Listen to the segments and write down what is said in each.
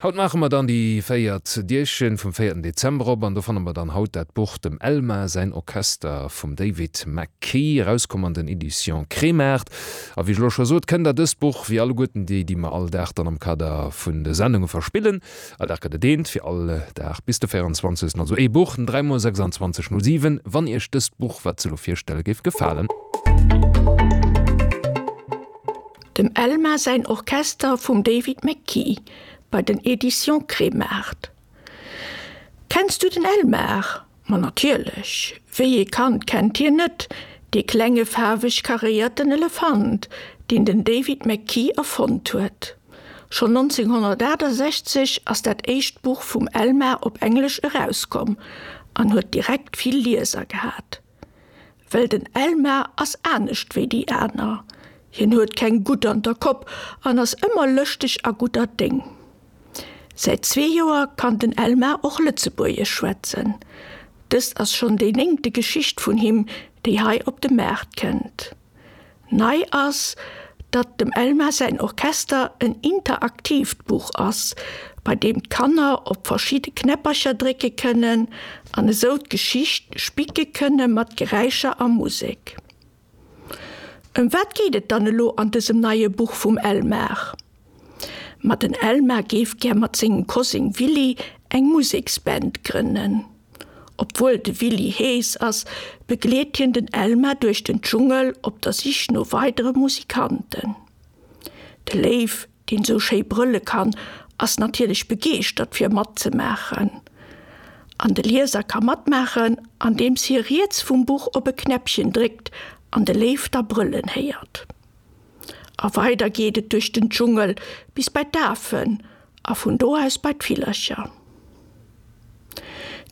Haut maache mer dann déi véiert Dierchen vum véierten Dezember op an do fanne mer dann haut dat Buch Dem Elmar säin Orchester vum David McKee, erauskomm an den Editions Kremart. A wéi ech elo scho sot, kënnt der dëst Buch, wéi alleguerten déi, déi mer all Dag dann am Kader vun de Sendunge verspillen, all Dag gëtt et eent, fir all Dag bis de 24. Also ee Buch, 3 mol 26 07, wann iech dëst Buch, wat se elo virstelle, géif gefalen. Dem Elmar säin Orchester vum David McKee bei den Editions Kremart. Kenns du den Elmar? Ma natierlech! Wéi ee Kand kennt hien net, dee klenge faarweg karéierten Elefant, deen den David McKee erfonnt huet. Schonn 1968 ass dat éischt Buch vum Elmar op Englesch erauskomm an huet direkt vill Lieser gehat. Well den Elmar ass anescht wéi déi aner. Hien huet keng Gutt an der Kopp an ass ëmmer lëschteg a gudder Déng. Säit zwee Joer kann den Elmar och Lëtzebuergesch schwätzen. Dëst ass schonn déi néngte Geschicht vun him, déi hei op de Maart kënnt. Nei ass, datt dem Elmar säin Orchester en interaktiivt Buch ass, bei deem d'Kanner op verschidde Knäppercher drécke kënnen an esou d'Geschicht spicke kënne mat Geräischer a Musek. Ëm wat geet et dann elo an dësem neie Buch vum Elmar? Ma den Elmar géif gär mat sengem Koseng Willy eng Museksband grënnen. Obwuel de Willy hees ass, begleet hien den Elmar duerch den Dschungel op der Sich no weidere Musikanten. De Léiw, deen sou schéi brëlle kann, ass natierlech begeeschtert fir matzemaachen. An de Lieser ka matmaachen, andeems hie riets vum Buch op e Knäppchen dréckt an de Léiw da brëllen héiert. A weider geet et duerch den Dschungel bis bei d'Afen a vun do aus bei d'Villercher.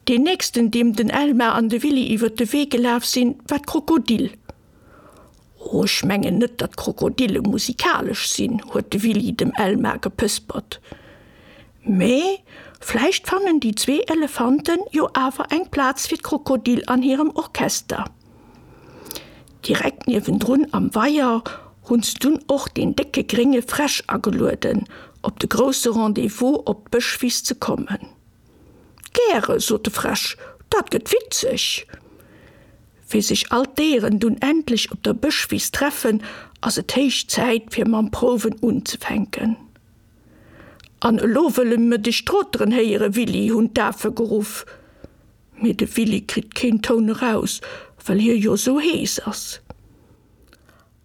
Deen nächsten, deem den Elmar an de Willy iwwer de Wee gelaf sinn, war d'Krokodil. Oh, ech mengen net, datt Krokodille musikalesch sinn, huet de Willy dem Elmar gepëspert. Mee vläicht fannen déi zwee Elefanten jo awer eng Plaz fir d'Krokodil an hirem Orchester. Direkt niewendrun am Weier hunn se dunn och deen décke grénge Fräsch agelueden, op de grousse Rendez-vous op d'Bëschwiss ze kommen. Gäre, sot de Fräsch, dat gëtt witzeg! Wéi sech all d'Déieren dunn endlech op der Bëschwiss treffen, ass et héich Zäit fir mam Prouwen unzefänken. An elo wëlle mer dech troteren héieren, Willy, hunn d'Afe geruff. Mee de Willy kritt keen Toun eraus, well hie jo sou hees ass.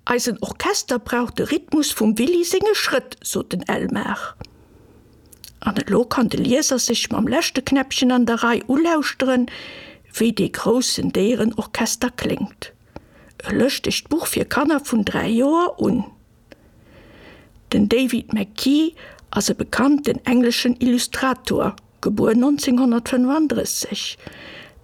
Eisen Orchester brauch de Rhythmus vum Willy senge Schrëtt, sot den Elmar. An elo kann de Lieser sech mam leschte Knäppchen an der Rei ulauschteren, wéi dee groussen Déierenorchester kléngt. E lëschtegt Buch fir Kanner vun 3 Joer un. Den David McKee ass e bekannten engleschen Illustrator, gebuer 1935.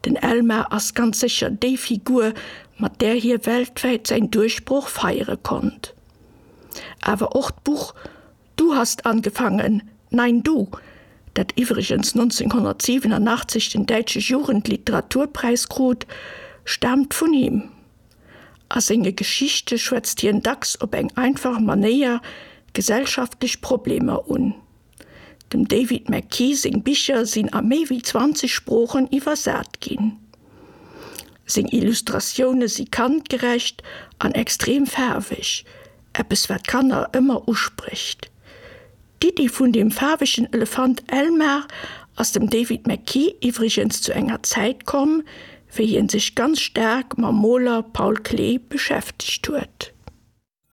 Den Elmar ass ganz sécher déi Figur, mat där hie weltwäit säin Duerchbroch feiere konnt. Awer och d'Buch Du hast angefangen, nein du, dat iwwregens 1987 den Däitsche Jugendliteraturpreis krut, staamt vun him. A senge Geschichte schwätzt hien dacks op eng einfach Manéier gesellschaftlech Problemer un. Dem David McKee seng Bicher sinn a méi wéi 20 Sproochen iwwersat ginn. Seng Illustratioune si kandgerecht an extrem faarweg, eppes wat Kanner ëmmer usprécht. D'Iddi vun dem faarwegen Elefant Elmar ass dem David McKee iwwregens zu enger Zäit komm, wéi hien sech ganz staark mam Moler Paul Klee beschäftegt huet.